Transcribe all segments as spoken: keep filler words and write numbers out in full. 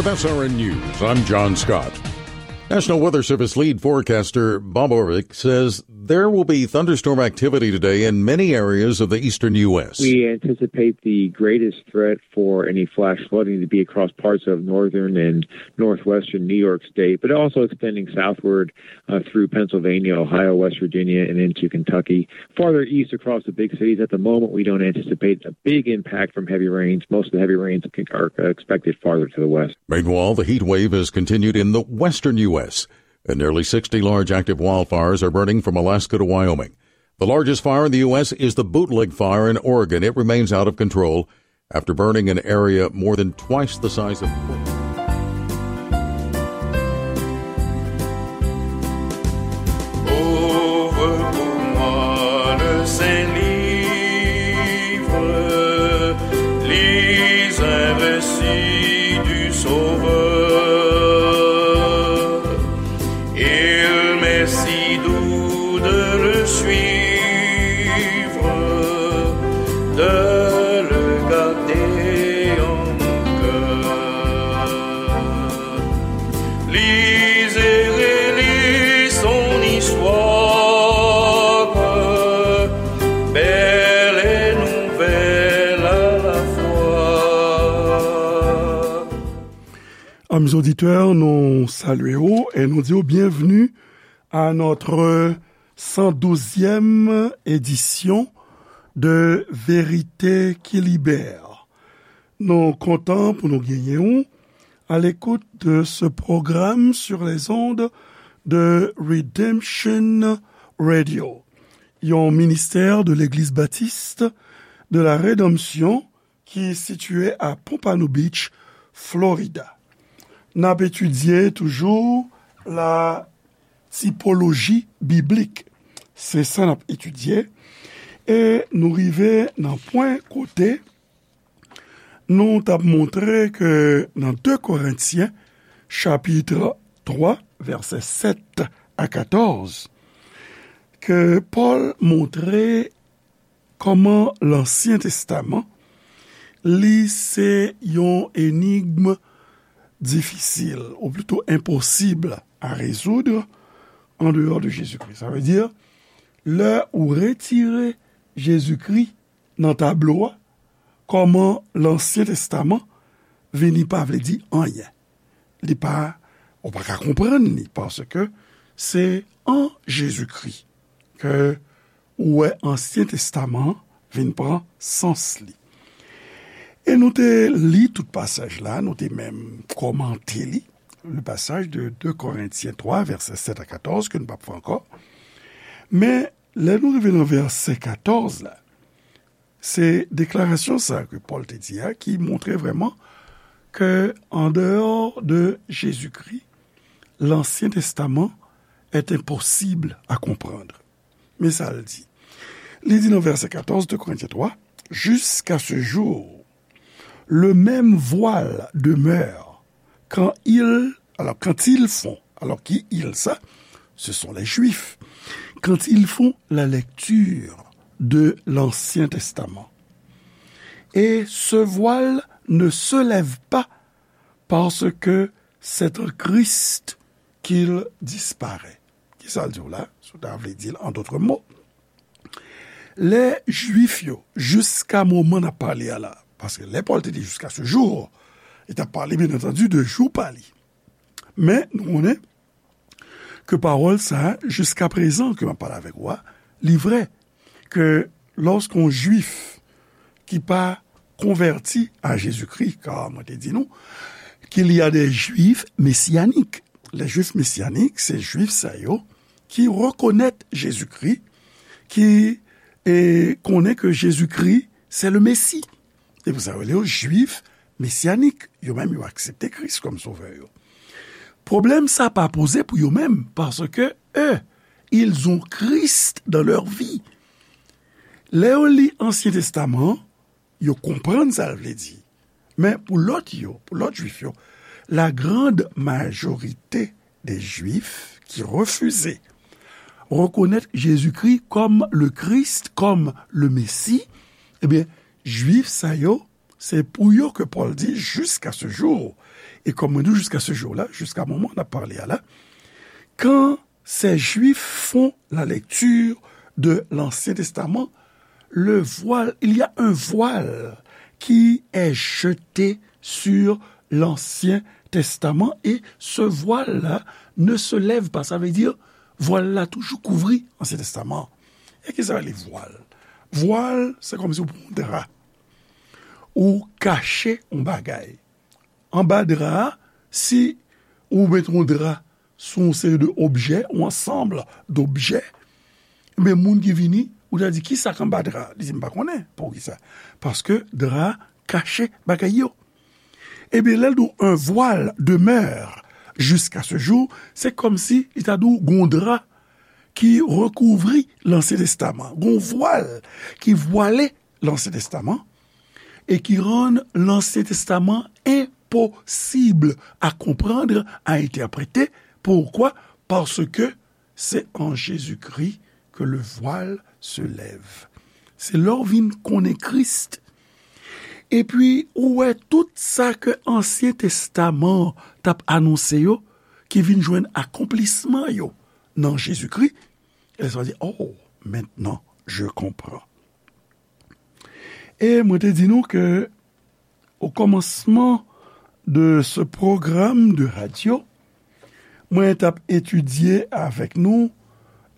F S R N News, I'm John Scott. National Weather Service lead forecaster Bob Orvik says there will be thunderstorm activity today in many areas of the eastern U S. We anticipate the greatest threat for any flash flooding to be across parts of northern and northwestern New York State, but also extending southward uh, through Pennsylvania, Ohio, West Virginia, and into Kentucky. Farther east across the big cities, at the moment, we don't anticipate a big impact from heavy rains. Most of the heavy rains are expected farther to the west. Meanwhile, the heat wave has continued in the western U S, and nearly sixty large active wildfires are burning from Alaska to Wyoming. The largest fire in the U S is the Bootleg Fire in Oregon. It remains out of control after burning an area more than twice the size of Ouvre pour moi le Saint-Livre, lis un récit du Sauveur. Il m'est si doux de le suivre, de le garder en mon cœur. Lis et relis son histoire, belle et nouvelle à la fois. Amis auditeurs, nous saluons et nous disons bienvenue à notre cent douzième édition de Vérité qui Libère. Nou kontan pou nou genyen w à l'écoute de ce programme sur les ondes de Redemption Radio, yon ministè de Legliz Batis de la Redanmsyon ki sitiye a Pompano Beach, Florida. N ap etidye toujou la tipoloji biblik. Se sa n ap etidye. E nou rive nan pwen kote nou t ap montre ke nan de Korentyen, chapit twa, vèsè sèt a katòz, ke Pòl montre kòman Lansyen Testaman, li se yon enigm difisil, ou plito enposib a rezoud, an deyò de Jezikri. Sa vle di, lè ou retire Jezikri nan tablo a, kòman Lansyen Testaman vini pa vle di anyen. Li pa, ou pa ka konprann li, paske se an Jezikri ke ou wè Ansyen Testaman an vin pran sans li. E nou te li tout pasaj la, nou te menm kòmante li, le pasaj de de Korentyen twa, vèsè sèt a katòz, ke nou p ap fè ankò. Men, lè nou rive nan vèsè katòz la, se deklarasyon sa ke Pòl te di a ki montre vrèman ke, en dehors de Jésus-Christ, l'Ancien Testament est impossible à comprendre. Men sa l di. Li di nan vèsè katòz de Korentyen twa, jusqu'à ce jour, le même voile demeure quand ils, alors quand ils font, alors qui ils ça? Ce sont les Juifs. Quand ils font la lecture de l'Ancien Testament. Et ce voile ne se lève pas parce que c'est en Christ qu'il disparaît. Kisa l di w la? Si w ta vle di l an dòt mo, lè Jwif yo, jiska moman n ap pale a la, paske lè Pòl te di jusqu'à ce jour, li t ap pale, byen antandi, de jou pa li. Men, nou konnen ke pawòl sa a, jiska prezan ke m ap pale avèk ou a, li vrè, ke lòske yon Jwif ki pa konvèti a Jezikri, ka mwen te di nou, qu'il y a des Juifs messianiques. Les Juifs messianiques, se Jwif sa yo ki rekonèt Jezikri, ki, e, konnen ke Jezikri, se le Mesi. Se pou sa yo rele yo Jwif mesyanik. Yo menm, yo aksepte Kris kòm Sovè yo. Pwoblèm sa pa poze pou yo menm, paske, eux, ils ont Christ dans leur vie. Lè yo li Ansyen Testaman an, yo konprann sa l vle di. Men pou lòt yo, pou lòt Jwif yo, la grande majorité des Juifs qui refusaient reconnaître Jésus-Christ comme le Christ, comme le Messie, ebyen, Jwif sa yo, Se pou yo ke Pòl di, jusqu'à ce jour. E kòm mwen di w, jusqu'à ce jour la, jusqu'à moment n ap pale a la, quand ces Juifs font la lecture de l'Ancien Testament, le voile, il y a un voile qui est jeté sur l'Ancien Testament et ce voile-là ne se lève pas. Sa vle di, vwal la toujou kouvri Ansyen Testaman. E ki sa rele vwal? Vwal, se kòmsi ou pran yon dra, ou kache yon bagay. Anba dra a, si ou met yon dra sou yon seri de objè, yon ansanm d'objè, men moun ki vini, ou ta di, "Ki sa k anba dra a?" Li di, "M pa konnen." Poukisa? Paske dra a kache bagay yo. Ebyen, lè l di w, un voile demeure jusqu'à ce jour, se kòmsi li ta di w gon dra ki rekouvri Lansyen Testaman, gon vwal ki vwale Lansyen Testaman, e ki rann Lansyen Testaman enposib a konprann, a entèprete. Poukwa? Paske c'est en Jésus-Christ que le voile se lève. Se lè w vin konnen Kris. Epi, ou wè tout sa ke Ansyen Testaman t ap anonse yo, ki vin jwenn akonplisman yo nan Jezikri. E sa di, "Oh, maintenant, je comprends." E mwen te di nou ke, au commencement de ce programme de radio, mwen t ap etidye avèk nou,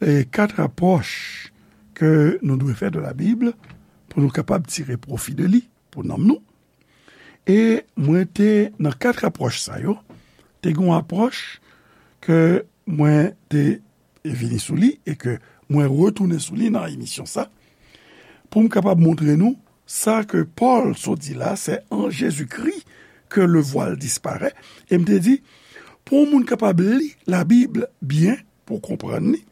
e, kat apwòch ke nou dwe fè de la Bib pou nou kapab tire pwofi de li pou nanm nou. E mwen te, nan kat apwòch sa yo, te gen yon apwòch ke mwen te vini sou li e ke mwen retounen sou li nan emisyon sa, pou m kapab montre nou sa ke Pòl sot di la, c'est en Jésus-Christ que le voile disparaît. E m te di, pou yon moun kapab li Labib byen, pou w konprann li,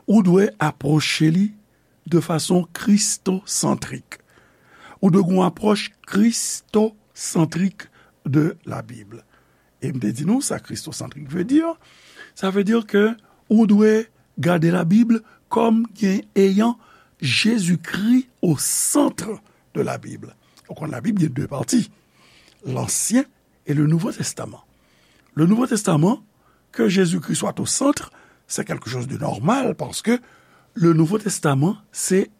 ou dwe apwoche li de fason kristosantrik. Ou dwe gen yon apwòch kristosantrik de la Bib. E m te di nou sa kristosantrik vle di. Sa vle di ke ou dwe gade la Bib kòm gen, ayant Jésus-Christ au centre de la Bible. Ou konn la Bib gen de pati, l'Ancien et le Nouveau Testament. Le Nouveau Testament, que Jésus-Christ soit au centre, c'est quelque chose de normal parce que le Nouveau Testament, c'est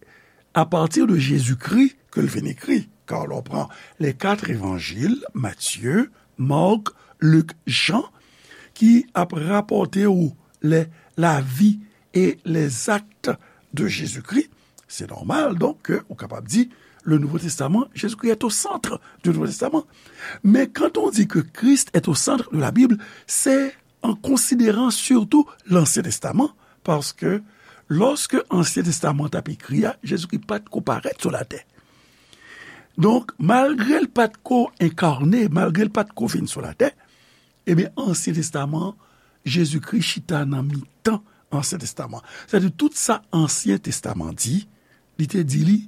à partir de Jésus-Christ que l vin écrit. Car on prend les quatre évangiles, Matthieu, Marc, Luc, Jean, ki ap rapòte ou les, la vie et les actes de Jésus-Christ. C'est normal, donc, ke ou kapab di, le Nouveau Testament, Jésus-Christ est au centre du Nouveau Testament. Mais quand on dit que Christ est au centre de la Bible, c'est en considérant surtout l'Ancien Testament, parce que lorsque Ancien Testament t ap ekri a, Jezikri pa t ko parèt sou latè. Donk, malgre l pa t ko enkarne, malgre l pa t ko vin sou latè, ebyen, Ansyen Testaman, Jezikri chita nan mitan Ansyen Testaman. Sètadi, tout sa Ansyen Testaman di, li te di li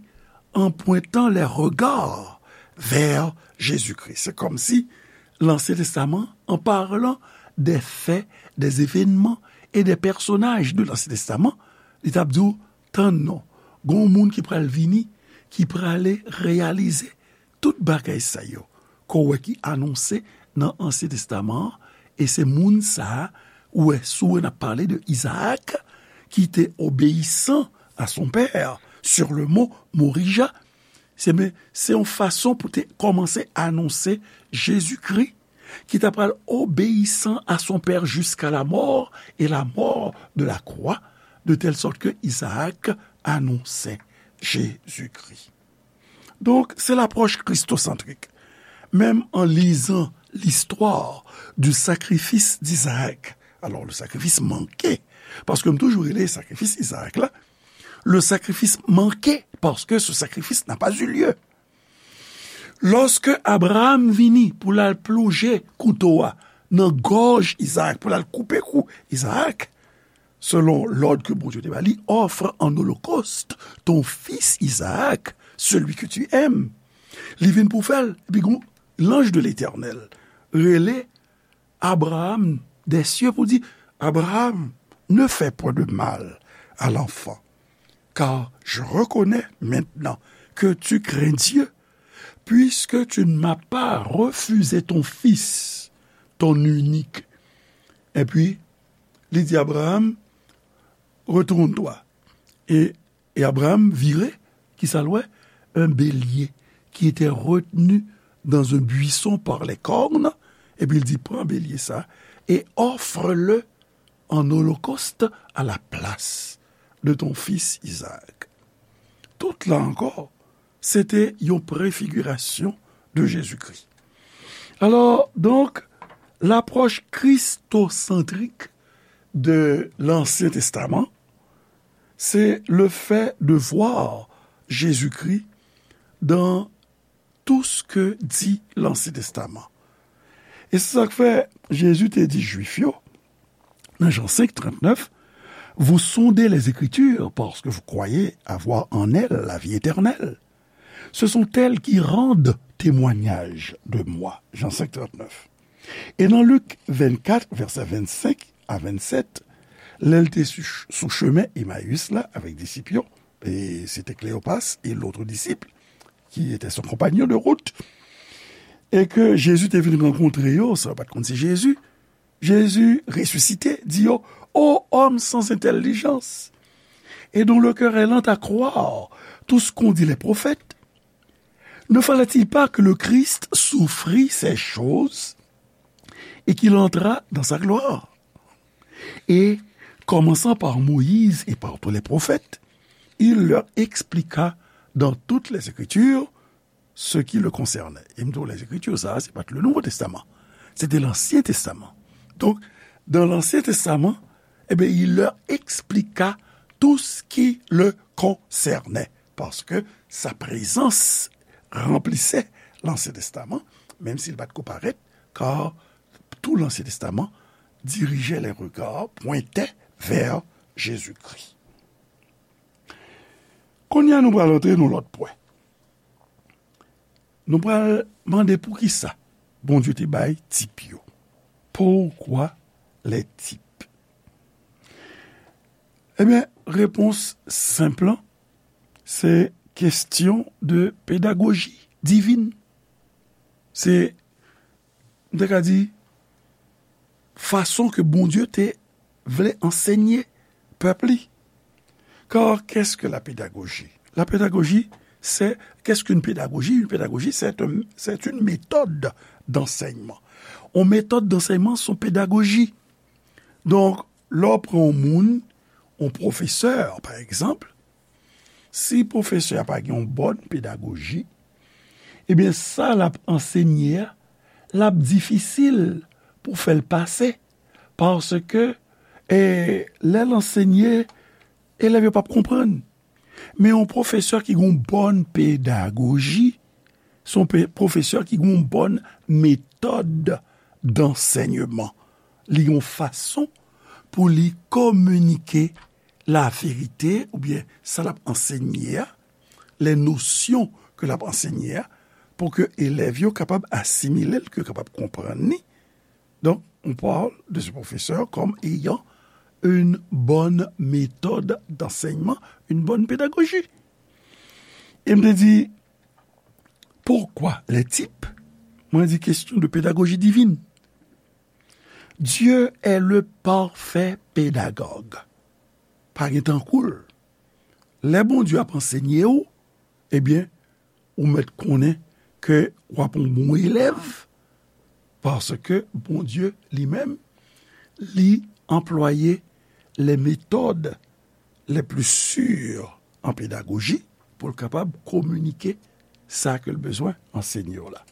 en pointant les regards vers Jésus-Christ. Se kòmsi Lansyen Testaman, en parlant des faits, des événements et des personnages de l'Ancien Testament, li t ap di w, tann non, gen yon moun ki pral vini, ki prale reyalize tout bagay sa yo ke w wè ki anonse nan Ansyen Testaman an, e se moun sa a, ou wè, si w wè n ap pale de Isaac, qui était obéissant à son père, sur le mont Morijah. Se, men, se yon fason pou te kòmanse anonse Jezikri, ki ta pral obéissant à son père jusqu'à la mort et la mort de la croix, de telle sorte que Isaac annonçait Jésus-Christ. Donk, se lapwòch kristosantrik. Menm an lizan l'histoire du sacrifice d'Isaac, alors, le sacrifice manqué, paske m toujou rele sakrifis Izaak la, le sacrifice manqué, parce que ce sacrifice n'a pas eu lieu. Lòske Abraram vini pou l al plonje kouto a nan gòj Izaak, pou l al koupe kou Izaak, selon lòd ke Bondye te ba li, offre en holocauste ton fils Isaac, celui que tu aimes. Li vin pou fè l, epi gon lanj de Letènèl rele Abraham des cieux pou di, Abraham, ne fais point de mal à l'enfant, car je reconnais maintenant que tu crains Dieu, puisque tu ne m'as pas refusé ton fils, ton unique. Et puis, li di Abraham, retourne-toi. Et, et Abraham vire, ki sa l wè? Un bélier qui était retenu dans un buisson par les cornes. Epi l di, pran belye sa, et offre-le en holocauste à la place de ton fils Isaac. Tout la ankò, se te yon prefigirasyon de Jezikri. Alors, donc, l'approche christocentristique de l'Ancien Testament, c'est le fait de voir Jésus-Christ dans tout ce que dit l'Ancien Testament. E se sa k fè Jezi te di Jwif yo, nan Jan senk trannèf, vous sondez les Écritures parce que vous croyez avoir en elles la vie éternelle. Ce sont elles qui rendent témoignage de moi. Jan senk trannèf. E nan Lik vennkat, vèsè vennsenk a vennsèt, lè l te sou, sou chemen Emayis la avèk disip yo, e se te Kleopas e lòt disip ki te son konpanyon de wout, e ke Jezi te vin rankontre yo, sa yo pa t konn se Jezi, Jésus ressuscité, di yo, ô homme sans intelligence, et dont le cœur est lent à croire tout ce qu'ont dit les prophètes, ne fallait-il pas que le Christ souffrit ces choses et qu'il entrât dans sa gloire? Et, commençant par Moïse et par tous les prophètes, il leur expliqua dans toutes les Écritures ce qui le concernait. E m di w, Lèzekriti, sa a, se pa t le Nouveau Testament. Se te Lansyen Testaman. Donk, dans l'Ancien Testament, eh bien, il leur expliqua tout ce qui le concernait. Parce que sa présence remplissait l'Ancien Testament, même s'il pa t ko parèt, car tout l'Ancien Testament dirigeait les regards, pointait vers Jésus-Christ. Kounye a, nou pral antre nan lòt pwen. Nou pral mande poukisa Bondye te bay tip yo. Pourquoi les types? Ebyen, repons senp lan, se kesyon de pedagoji divin. Se, m te ka di, fason ke Bondye te vle ansenye pèp li. Car qu'est-ce que la pédagogie? La pédagogie, c'est, qu'est-ce qu'une pédagogie? Une pédagogie, c'est un, c'est une méthode d'enseignement. Yon metòd dansèyman, se yon pedagoji. Donk, lè w pran yon moun, yon pwofesè, pa egzanp, si pwofesè a pa gen yon bòn pedagoji, ebyen, sa l ap ansenye a, l ap difisil pou fè l pase. Paske, e, lè l ansenye, elèv yo p ap konprann. Men yon pwofesè ki gen yon bòn pedagoji, se yon pe-, pwofesè ki gen yon bòn metòd dansèyman. Li gen yon fason pou li kominike laverite oubyen sa l ap ansenye a, les notions ke l ap ansenye a, pou ke elèv yo kapab asimile l, ke yo kapab konprann li. Donc, on parle de ce professeur comme ayant une bonne méthode d'enseignement, une bonne pédagogie. E m te di, pourquoi les types? Mwen di, question de pédagogie divine. Dieu est le parfait pédagogue. Pa gen tankou l. Lè Bondye ap ansenye w, ebyen, ou mèt konnen ke w ap yon bon elèv, paske Bondye li menm, li anplwaye les méthodes les plus sûres en pédagogie pou l kapab kominike sa ke l bezwen ansenye w la.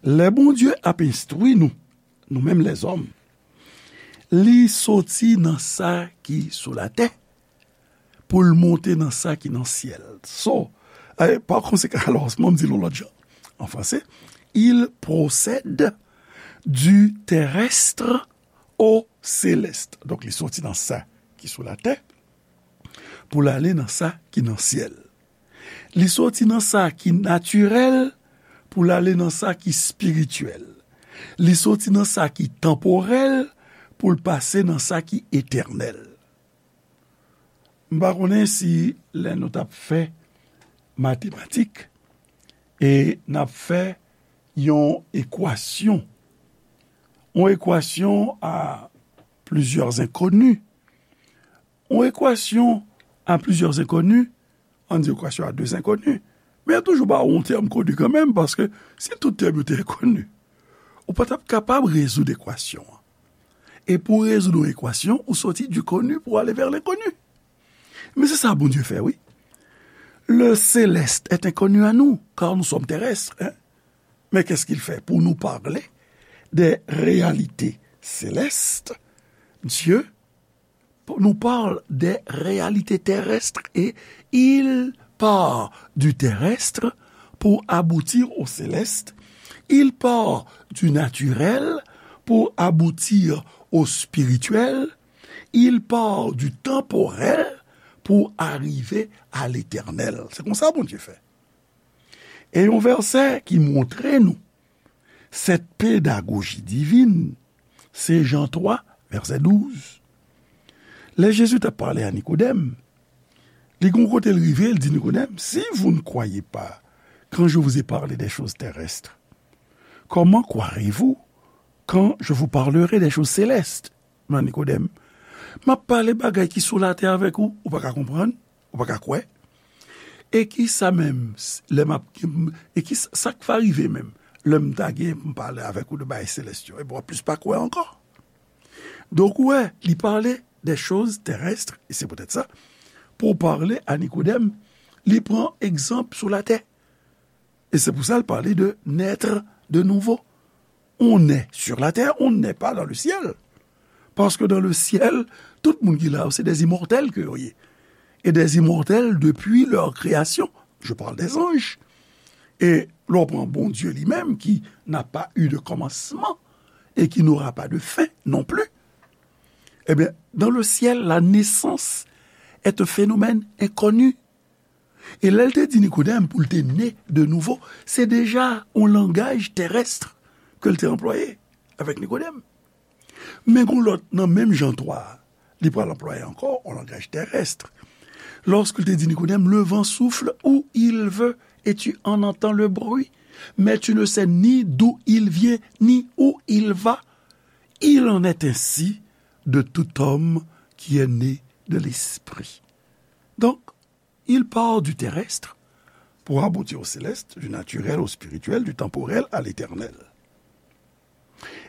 Lè Bondye ap enstwi nou, nou menm lèzòm, li soti nan sa ki sou latè pou l monte nan sa ki nan syèl. So, eh, pa konsekan, alò, mwen m di l yon lòt jan. An franse, il procède du terrestre au céleste. Donk, li soti nan sa ki sou latè pou l ale nan sa ki nan syèl. Li soti nan sa ki natirèl pou l ale nan sa ki espirityèl. Li soti nan sa ki tanporèl pou l pase nan sa ki etènèl. M pa konnen si lè nou t ap fè matematik, E n ap fè yon ekwasyon. Yon ekwasyon a plizyè enkoni. Yon ekwasyon a plizyè enkoni, ann di ekwasyon a de enkoni. Men yo toujou ba w yon tèm koni kanmenm, paske si tout tèm yo te enkoni, ou pa t ap kapab rezoud ekwasyon an. E pou w rezoud yon ekwasyon, ou soti du connu pou w ale vè lenkoni. Men se sa Bondye fè, wi. Le céleste est inconnu à nous, car nous sommes terrestres, hein. Mais qu'est-ce qu'il fait? Pour nous parler des réalités célestes, Dieu nous parle des réalités terrestres et il part du terrestre pour aboutir au céleste. Il part du naturel pour aboutir au spirituel. Il part du temporel pour arriver à l'éternel. Se konsa Bondye fè. E yon vèsè ki montre nou cette pédagogie divine, se Jan twa, vèsè douz. Lè Jezi t ap pale a Nikodèm, li gon kote l rive, l di Nikodèm, si vous ne croyez pas quand je vous ai parlé des choses terrestres, comment croirez-vous quand je vous parlerai des choses célestes? Men Nikodèm, m ap pale bagay ki sou latè avèk ou, ou pa ka konprann, ou pa ka kwè. E ki sa menm, lè m ap, e ki sa, sa k va rive menm, lè m ta gen pou m pale avèk ou de bagay selès yo, e w ap plis pa kwè ankò. Donk, ou wè, li pale des choses terrestres, e se poutèt sa, pou pale a Nikodèm, li pran egzanp sou latè. E se pou sa l pale de naître de nouveau. On naît sur la terre, on ne naît pas dans le ciel. Parce que dans le ciel, tout moun ki la yo, se des immortels ke yo ye. Et des immortels depuis leur création. Je parle des anges. Et lè w pran Bondye li menm, qui n'a pas eu de commencement et qui n'aura pas de fin non plus. Eh bien, dans le ciel, la naissance est un phénomène inconnu. E lè l te di Nikodèm pou l te ne de nouvo, se deja yon langaj terès ke l te anplwaye avèk Nikodèm. Men gon lòt nan menm Jan twa a, li pral anplwaye ankò yon langaj terès. Lorsque il te dit Nicodème, le vent souffle où il veut et tu en entends le bruit, mais tu ne sais ni d'où il vient ni où il va. Il en est ainsi de tout homme qui est né de l'Esprit. Donc, il part du terrestre pour aboutir au céleste, du naturel au spirituel, du temporel à l'éternel.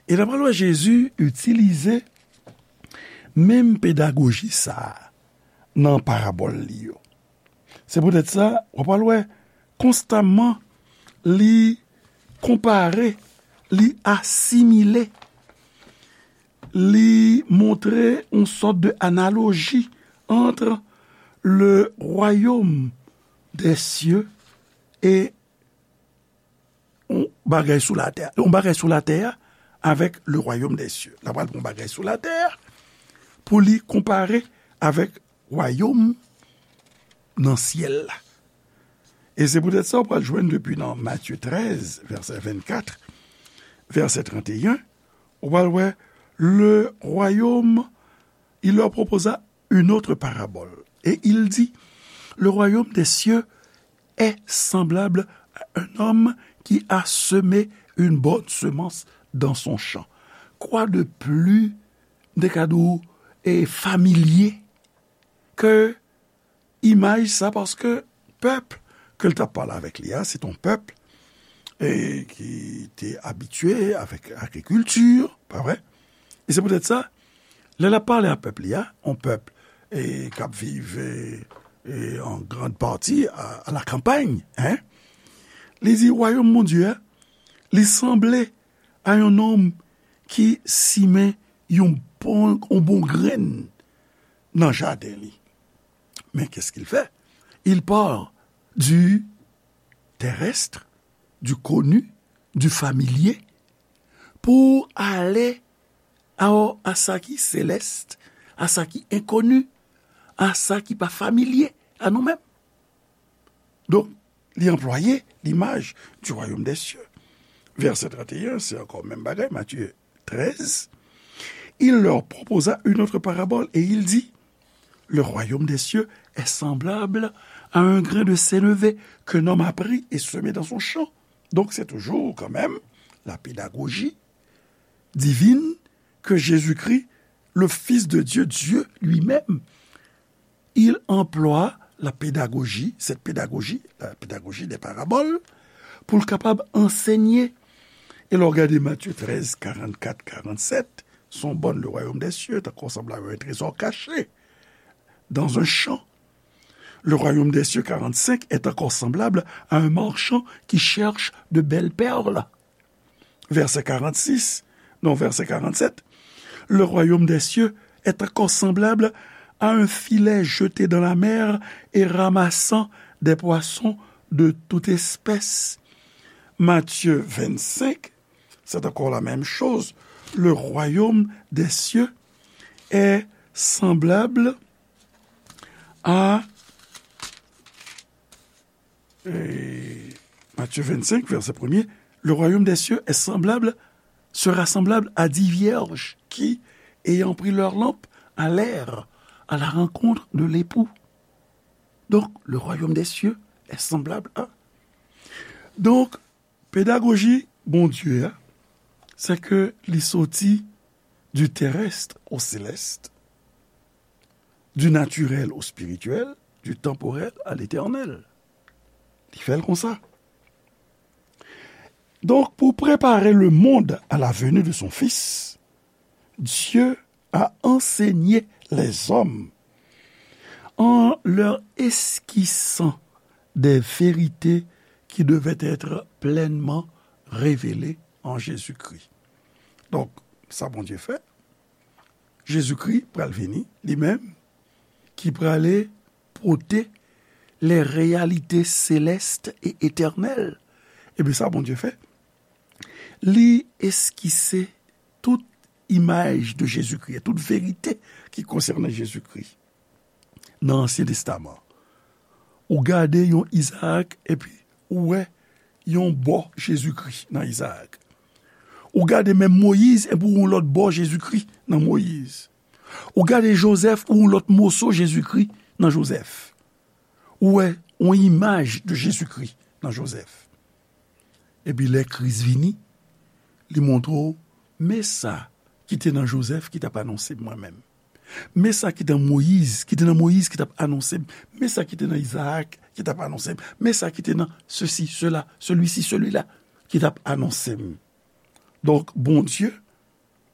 E n ap wè Jezi itilize menm pedagoji sa a nan parabòl li yo. Se poutèt sa, w ap wè konstamman li konpare, li asimile, li montre yon sòt de analoji entre le royaume des cieux e yon bagay sou latè, yon bagay sou latè a avèk le royaume des cieux. L ap pran yon bagay sou latè a pou li konpare avèk wayòm nan syèl la. E se poutèt sa, w pral jwenn depi nan Matye trèz, vèsè vennkat, vèsè trannteyen, w pral wè, le royaume, il leur proposa une autre parabole. Et il dit, le royaume des cieux est semblable à un homme qui a semé une bonne semence dans son champ. Quoi de plus, m te ka di w, e, familye ke imaj sa, paske pèp ke l t ap pale avèk li a, se t on pèp, e, ki te abitye avèk agrikilti, pa vre? E se poutèt sa, lè l ap pale a pèp li a, on pèp, e, k ap viv, e, e, an grann pati a, a la kanpay, en, li di, wayòm Bondye a, li sanble a yon nonm ki simen yon bon, yon bon grenn nan jaden li. Mais qu'est-ce qu'il fait? Il part du terrestre, du connu, du familier, pou ale a, a sa ki selès, a sa ki enkoni, a sa ki pa familye a nou menm. Donk, li anplwaye limaj du royaume des cieux. Vèsè trannteyen, se ankò menm bagay, Matye trèz. Il leur proposa une autre parabole et il dit, le royaume des cieux est semblable à un grain de sénévé qu'un homme a pris et semé dans son champ. Donc, c'est toujours quand même la pédagogie divine que Jésus-Christ, le Fils de Dieu, Dieu lui-même, il emploie la pédagogie, cette pédagogie, la pédagogie des paraboles, pou l kapab ansenye. E lè w gade Matye trèz, karannkat, karannsèt, se yon bòn le royaume des cieux, est encore semblable à un trésor caché dans un champ. Le royaume des cieux, quarante-cinq, est encore semblable à un marchand qui cherche de belles perles. Verset quarante-six, non, verset quarante-sept. Le royaume des cieux est encore semblable à un filet jeté dans la mer et ramassant des poissons de toute espèce. Matthieu vingt-cinq, c'est encore la même chose. Le royaume des cieux est semblable à Et Matthieu vingt-cinq, verset premier, le royaume des cieux est semblable, sera semblable à dix vierges qui, ayant pris leur lampe, allèrent à la rencontre de l'époux. Donc, le royaume des cieux est semblable à. Donk, pedagoji Bondye a, se ke li soti du terrestre au céleste, du naturel au spirituel, du temporel à l'éternel. Li fè l konsa. Donc, pour préparer le monde à la venue de son Fils, Dieu a enseigné les hommes en leur esquissant des vérités qui devaient être pleinement révélées en Jésus-Christ. Donk, sa Bondye fè, Jezikri pral vini, li menm, ki prale pote les réalités célestes et éternelles. Ebyen, sa Bondye fè, li eskise tout imaj de Jezikri, tout verite ki konsène Jezikri nan Ansyen Testaman. Ou gade yon Izaak, epi ou wè yon bò Jezikri nan Izaak. Ou gade menm Moyiz, epi ou yon lòt bò Jezikri nan Moyiz. Ou gade Jozèf, ou yon lòt moso Jezikri nan Jozèf. Ou wè yon imaj de Jezikri nan Jozèf. Epi lè Kris vini, li montre w, men sa ki te nan Jozèf ki t ap anonse m mwen menm. Men sa ki te nan Moyiz, ki te nan Moyiz ki t ap anonse m. Men sa ki te nan Izaak ki t ap anonse m. Men sa ki te nan ceci, cela, celui-ci, celui-là ki t ap anonse m. Donk, Bondye,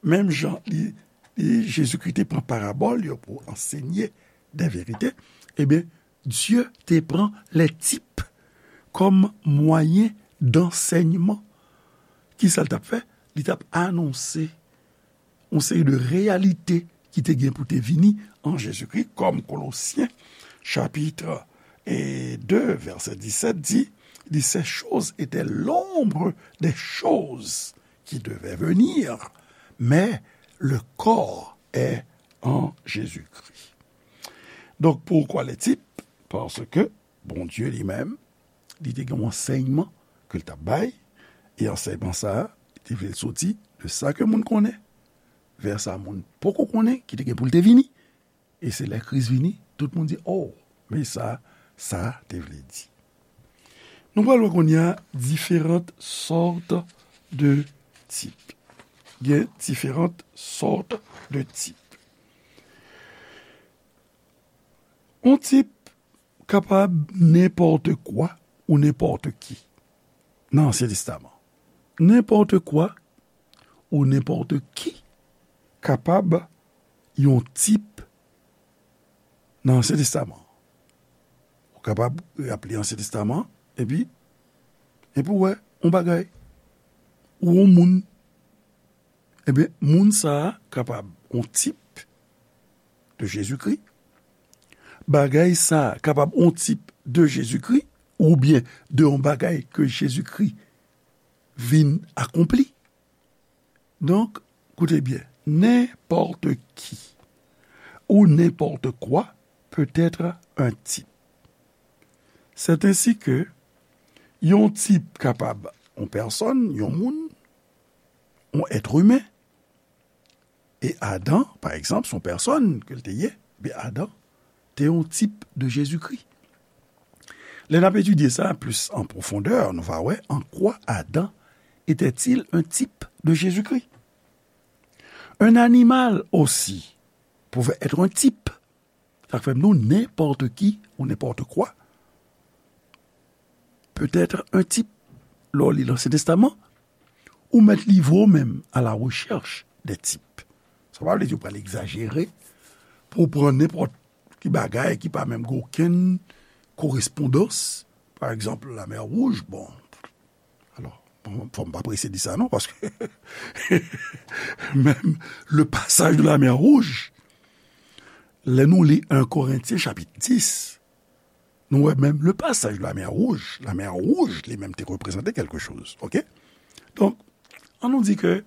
menm jan li, li, Jezikri te pran parabòl yo pou ansenye de verite, ebyen, Dye te pran les types comme moyen d'enseignement. Ki sa l t ap fè? Li t ap anonse yon seri de reyalite ki te gen pou te vini an Jezikri, kòm Kolosyen, chapit de, vèsè disèt di, li, ces choses étaient l'ombre des choses qui devaient venir, mais le corps est en Jésus-Christ. Donk, pourquoi les types? Paske Bondye li menm, li te gen yon ansèyman ke l t ap bay, e ansèyman sa a, li te vle l soti de sa ke moun konnen, vè sa moun poko konnen, ki te gen pou l te vini. E se lè Kris vini, tout moun di, "Oh, men sa, sa te vle di." Nou pral wè kounye a différentes sortes de types. Gen différentes sortes de types. Yon tip kapab nenpòt kwa ou nenpòt ki nan Ansyen Testaman. Nenpòt kwa ou nenpòt ki kapab yon tip nan Ansyen Testaman. Ou kapab ap li Ansyen Testaman, epi, epi w wè yon bagay, ou yon moun. Ebyen, moun sa a kapab yon tip de Jezikri. Bagay sa a kapab yon tip de Jezikri, oubyen de yon bagay ke Jezikri vin akonpli. Donk, koute byen, n'importe qui ou n'importe quoi peut être un type. C'est ainsi que yon tip kapab yon pèsòn, yon moun, yon èt imen, e Adan, pa egzanp, se yon pèsòn ke l te ye, men Adan te yon tip de Jezikri. Lè n ap etidye sa plis an pwofondè, nou va wè en quoi Adam était-il un type de Jésus-Christ. Un animal aussi pouvait être un type. Sa k fè m di w, nenpòt ki ou nenpòt kwa peut être un type. Lè w li Lansyen Testaman, ou mèt livre w menm à la recherche des types. Sa pa vle di w pral egzajere pou w pran nenpòt ki bagay ki pa menm gen okenn korespondans. Pa egzanp, Lamè Wouj, bon, alò, bon, fò m pa prese di sa non, paske menm le passage de la mer Rouge, lè nou li en Korentyen chapit dis, nou wè menm le passage de la mer Rouge, Lamè Wouj li menm te reprezante kèlke choz, oke? Donk, an nou di ke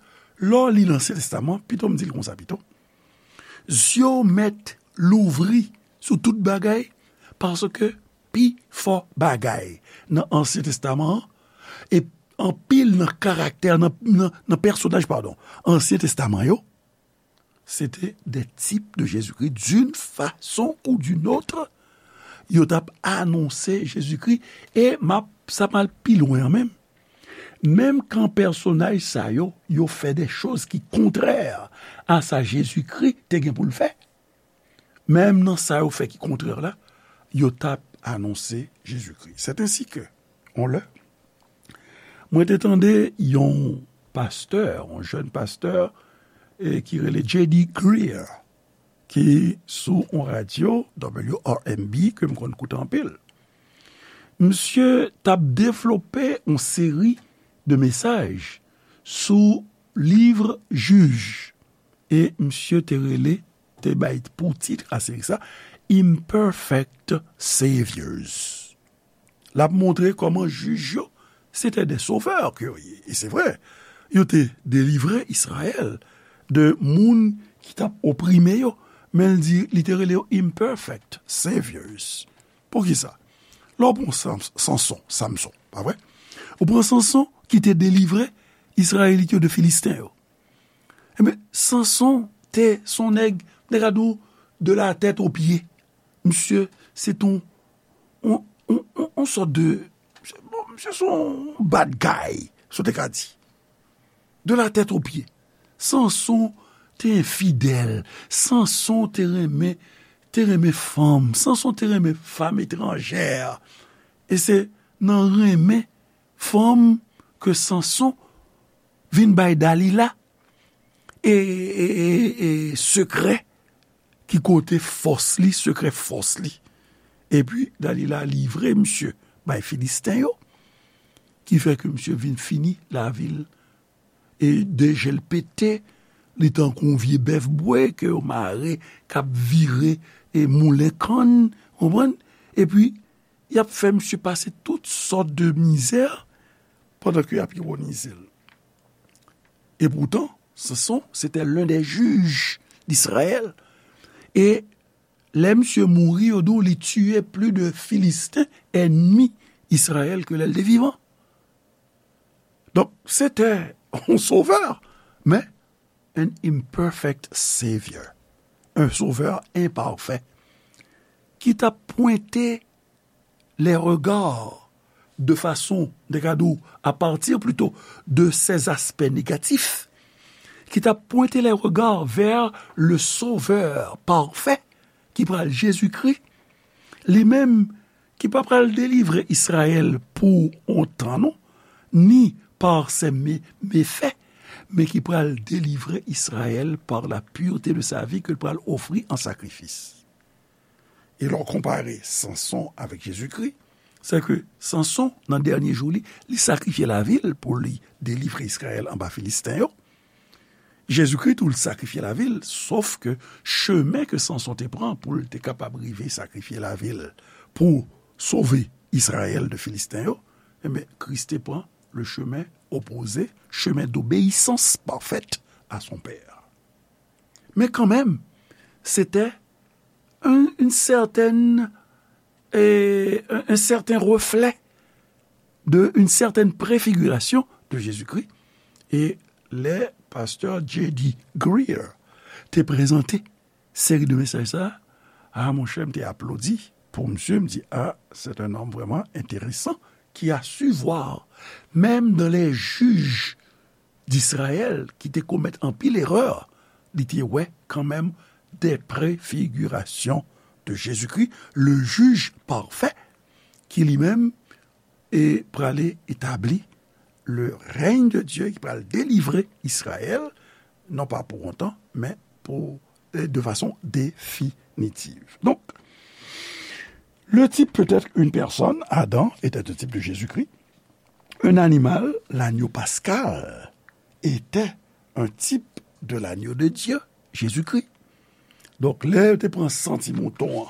lè w li Lansyen Testaman, pito m di l konsa pito, zye w mèt louvri sou tout bagay, paske pi fò bagay nan Ansyen Testaman an, e anpil nan karaktè, nan, nan, nan pèsonaj, padon, Ansyen Testaman yo, se te des types de Jésus-Christ, d'une façon ou d'une autre, yo t ap anonse Jezikri, e m ap, sa m al pi lwen an menm. Menm kan pèsonaj sa yo, yo fè de choz ki kontrè a sa Jezikri te gen pou l fè, menm nan sa yo fè ki kontrè la, yo t ap anonse Jezikri. C'est ainsi que, on lè, mwen te tande yon pastè, yon jèn pastè, e ki rele J D Greear, ki sou yon radyo, W R M B, ke m konn koute anpil. Misye t ap devlope yon seri de mesaj sou liv Jij. E misye te rele, te bay pou tit a seri sa, Imperfect Saviors. L ap montre kòman jij yo, se te de sovè ke yo ye. E se vre, yo te delivre Izrayèl de moun ki t ap oprime yo. Men l di, li te rele yo imperfect saviors. Poukisa? Lè w pran Sam-, Sanson, Samson, pa vre? Ou pran Sanson ki te delivre Izrayelit yo de Filisten yo. Ebyen, Sanson te se yon nèg, nèg a di w, de la tèt o pye. Misye, se t on, on, on, on, on sòt de, bon, misye se yon bad guy, si w te ka di. De la tèt o pye. Sanson te enfidèl. Sanson te renmen, te renmen fanm. Sanson te renmen fanm etranjè. E se nan renmen fanm ke Sanson vin bay Dalila e, e, e, e sekrè ki kote fòs li, sekrè fòs li. Epi Dalila livre misye bay Filisten yo, ki fè ke misye vin fini lavi l. E de je l pete, li tankou yon vye bèf bwe ke yo mare, k ap vire e moulen kann, konprann? Epi, y ap fè misye pase tout sòt de mizè pandan ke y ap ironize l. E poutan, Sanson, se te l'un des juges d'Israël. E lè misye mouri, yo di w li tiye plis de Filisten, ènmi Izrayèl, ke lè l te vivan. Donk, se te yon sovè, men an imperfect savior, un sauveur imparfait, ki t ap pwente les regards de façon, de ka di w, à partir plutôt de ces aspects négatifs, ki t ap pwente les regards vers le Sauveur parfait, ki pral Jezikri, li menm ki pa pral delivre Izrayèl pou yon tan non, ni par ses mé-, méfaits, men ki pral delivre Izrayèl par la pureté de sa vie ke l pral ofri an sakrifis. E lè w konpare Sanson avèk Jezikri, se ke Sanson, nan dènye jou li, li sakrifye lavi l pou li delivre Izrayèl anba Filisten yo. Jezikri tou, l sakrifye lavi l, sof ke chemen ke Sanson te pran pou l te kapab rive sakrifye lavi l pou sove Izrayèl de Filisten yo, enben, Kris te pran le chemin opposé, chemin d'obéissance parfaite à son Père. Men kanmenm, se te un, une certaine, eh, un, un certain reflet de, une certaine préfiguration de Jésus-Christ. E lè pastè J D Greear te prezante seri de mesaj sa a, a, monchè, m te aplodi. pou misye, m di, ah, c'est un homme vraiment intéressant qui a su voir, même dans les juges d'Israël ki te komèt anpil erè, li te wè kanmenm des préfigurations de Jésus-Christ, le juge parfait, ki li menm e prale etabli le règne de Dieu, ki pral delivre Israël, non pas pour un temps, mais pour, euh, de façon définitive. Donc, le type peut être une personne, Adam était un type de Jésus-Christ, un animal, l'agneau pascal était un type de l'agneau de Dieu, Jésus-Christ. Donk, lè yo te pran san ti mouton an,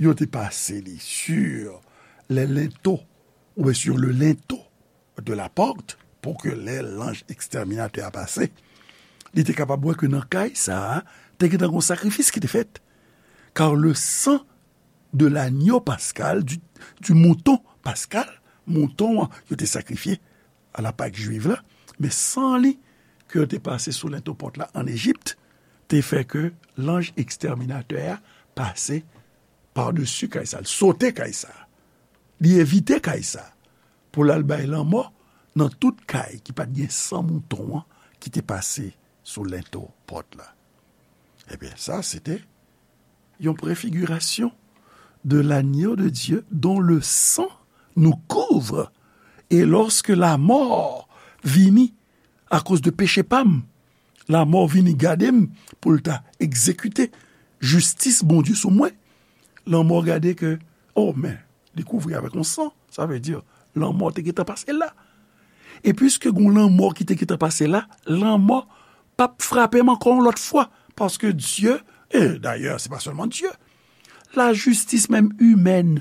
yo te pase li sur les linteaux, oubyen sur le linteau de la porte, pou ke lè lanj ekstèminatè a pase, li te kapab wè ke nan kay sa a, te gentan gon sakrifis ki te fèt. Car le sang de l'agneau pascal, du, du mouton pascal, mouton an yo te sakrifye a la Pak jwiv la, men san li ke yo te pase sou lento pòt la an Ejip, te fè ke lanj ekstèminatè a pase padesi kay sa, li sote kay sa, li evite kay sa, pou l al bay lanmò nan tout kay ki pa t gen san mouton an ki te pase sou lento pòt la. Ebyen, sa, se te yon préfiguration de l'agneau de Dieu dont le sang nous couvre. E lòske lamò vini akoz de peche pa m, lamò vini gade m pou l ta egzekite jistis Bondye sou mwen, lanmò gade ke, oh, men, li kouvri avèk yon san, sa vle di, lanmò te gentan pase la. E piske gon lanmò ki te gentan pase la, lanmò p ap frape m ankò yon lòt fwa, paske Dye, e dayè, se pa sèlman Dye, lajistis menm imèn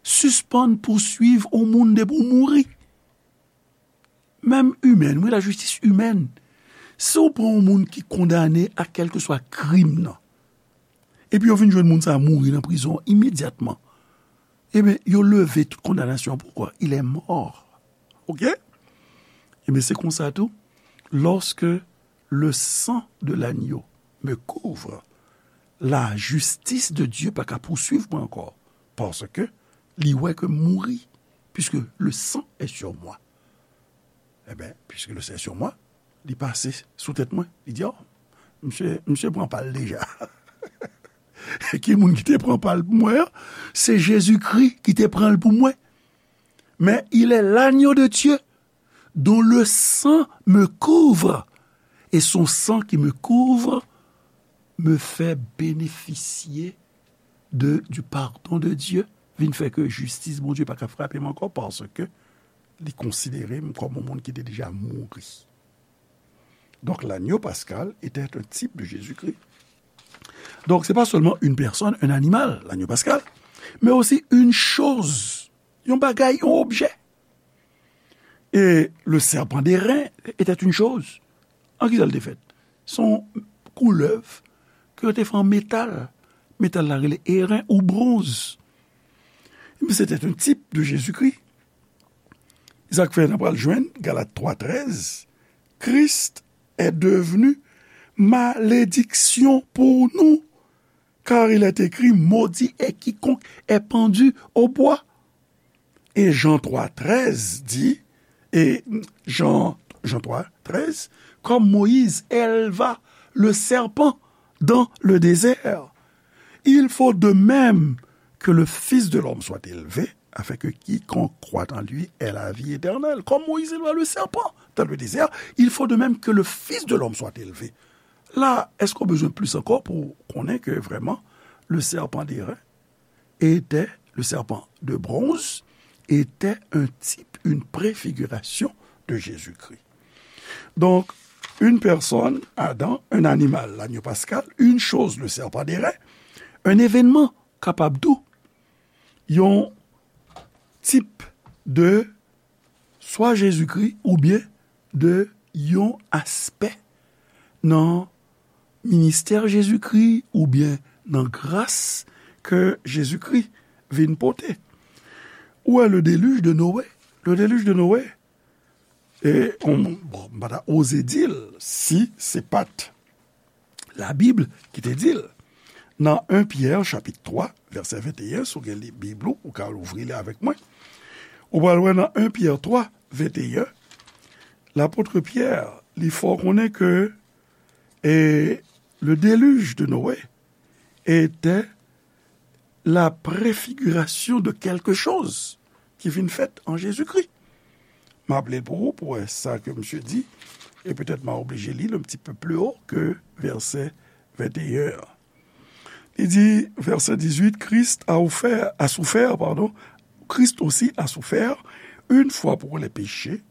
sispann pouswiv yon moun depi w mouri. Menm imèn, wi, lajistis imèn. Si w pran yon moun ki kondane a kèlkeswa krim nan, epi yo vin jwenn moun sa a mouri nan prizon an imedyatman, ebyen, yo leve tout kondanasyon an. Poukwa? Il est mort. Oke? Ebyen, se konsa tou, lorsque le sang de l'agneau me couvre, la justice de Dieu pa ka pouswiv mwen ankò, paske li wè ke m mouri, puisque le sang est sur moi. Ebyen, puisque le sang est sur moi, li pase sou tèt mwen. Li di, oh, misye, misye pran pa l deja. Ki moun ki te pran pa l pou mwen an? Se Jezikri ki te pran l pou mwen. Mais il est l'agneau de Dieu dont le sang me couvre. Et son sang qui me couvre me fait bénéficier de, du pardon de Dieu. Vin fè ke jistis Bondye pa ka frape m ankò, paske li konsidere m kòm yon moun ki te deja mouri. Donc, l'agneau pascal était un type de Jésus-Christ. Donc, c'est pas seulement une personne, un animal, l'agneau pascal, mais aussi une chose, yon bagay, yon objè. Et le serpent d'airain était une chose. An ki sa l te fèt? Se yon koulèv ke yo te fè an metal. Metal la rele eren ou bronz. Ebyen, c'était un type de Jésus-Christ. Sa k fè n ap pral jwenn Galat twa trèz, Christ est devenu malédiction pour nous, car il est écrit, maudit est quiconque est pendu au bois. Et Jean trois treize dit, et Jean, Jean trois treize, comme Moïse éleva le serpent dans le désert, il faut de même que le Fils de l'homme soit élevé, afin que quiconque croit en lui ait la vie éternelle. Comme Moïse éleva le serpent dans le désert, il faut de même que le Fils de l'homme soit élevé. La, èske w bezwen plis ankò pou konnen ke vrèman, le serpent d'airain était, le serpent de bronze était un type, une préfiguration de Jésus-Christ. Donc, une personne, Adam, un animal, l'agneau pascal, une chose, le serpent d'airain, un événement, kapab tou, yon tip de swa Jezikri oubyen de yon aspè nan ministè Jezikri oubyen nan gras ke Jezikri vin pote. Ou wè le déluge de Noé. Le déluge de Noé, e, on, bon, m pa ta oze di l si se pa t Labib ki te di l. nan en Pyè, chapit twa, vèsè venteyen, si w gen li, Bib ou, ou ka louvri li avèk mwen. Ou pral wè nan en Pyè twa, venteyen, lapot Pyè, li fè w konnen ke, e, le déluge de Noé était la préfiguration de quelque chose ki vin fèt an Jezikri. M ap li l pou ou, pou wè sa ke misye di, e petèt m a oblije li l un petit peu plus haut ke vèsè venteyen an. Li di, vèsè dizuit, Christ a offert, a souffert, pardon, Christ aussi a souffert, une fois pour les péchés,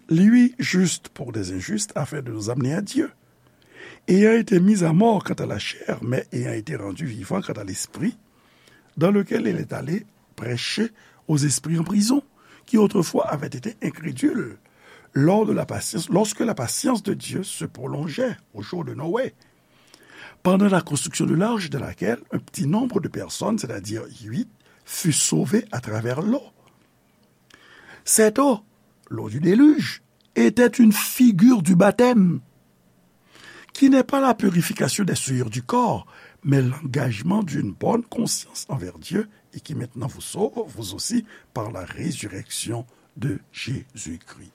lui juste pour les injustes, afin de nous amener à Dieu. Ayant été mis à mort quant à la chair, mais ayant été rendu vivant quant à l'esprit, dans lequel il est allé prêcher aux esprits en prison, qui autrefois avaient été incrédules, lors de la patience, lorsque la patience de Dieu se prolongeait au jour de Noé, pendant la construction de l'arche dans laquelle un petit nombre de personnes, c'est-à-dire huit, fut sauvé à travers l'eau. Cette eau, l'eau du déluge, était une figure du baptême, qui n'est pas la purification des souillures du corps, mais l'engagement d'une bonne conscience envers Dieu et qui maintenant vous sauve, vous aussi, par la résurrection de Jésus-Christ.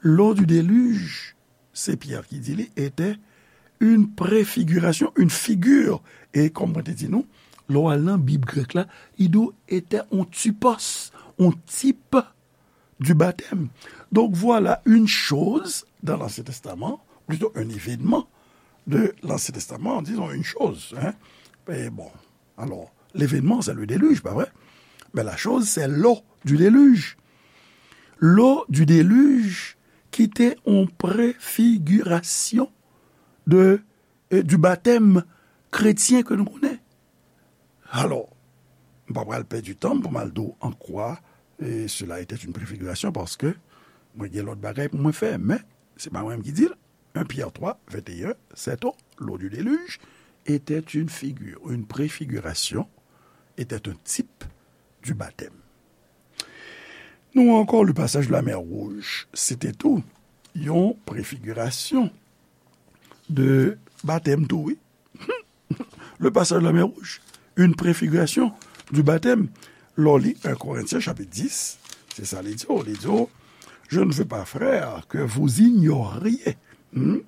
L'eau du déluge, se Pyè ki di li, était une préfiguration, une figure. E kòm mwen te di nou, lè w al nan Bib grèk la, li di w était un typos, un type du baptême. Donc voilà une chose dans l'Ancien Testament, plutôt un événement de l'Ancien Testament, disons une chose, hein. Et bon, alors, l'événement, c'est le déluge, pas vrai? Mais la chose, c'est l'eau du déluge. L'eau du déluge qui était en préfiguration de, euh, du baptême chrétien que nous connaissons. Alors, m pa pral pèdi tan pou m al di w an kwa, e, cela était une préfiguration, paske mwen gen lòt bagay pou mwen fè, men se pa mwen menm ki di l. En Pyè twa, venteyen, cette eau, l'eau du déluge, était une figure, une préfiguration, était un type du baptême. Nou ankò, le passage de la mer Rouge, se te tou yon préfiguration de batèm tou, wi. Le passage de la mer Rouge, une préfiguration du baptême. Lè w li en Corinthiens chapitre dix, se sa li di w, li di w, je ne veux pas, frères, que vous ignoriez, hmm,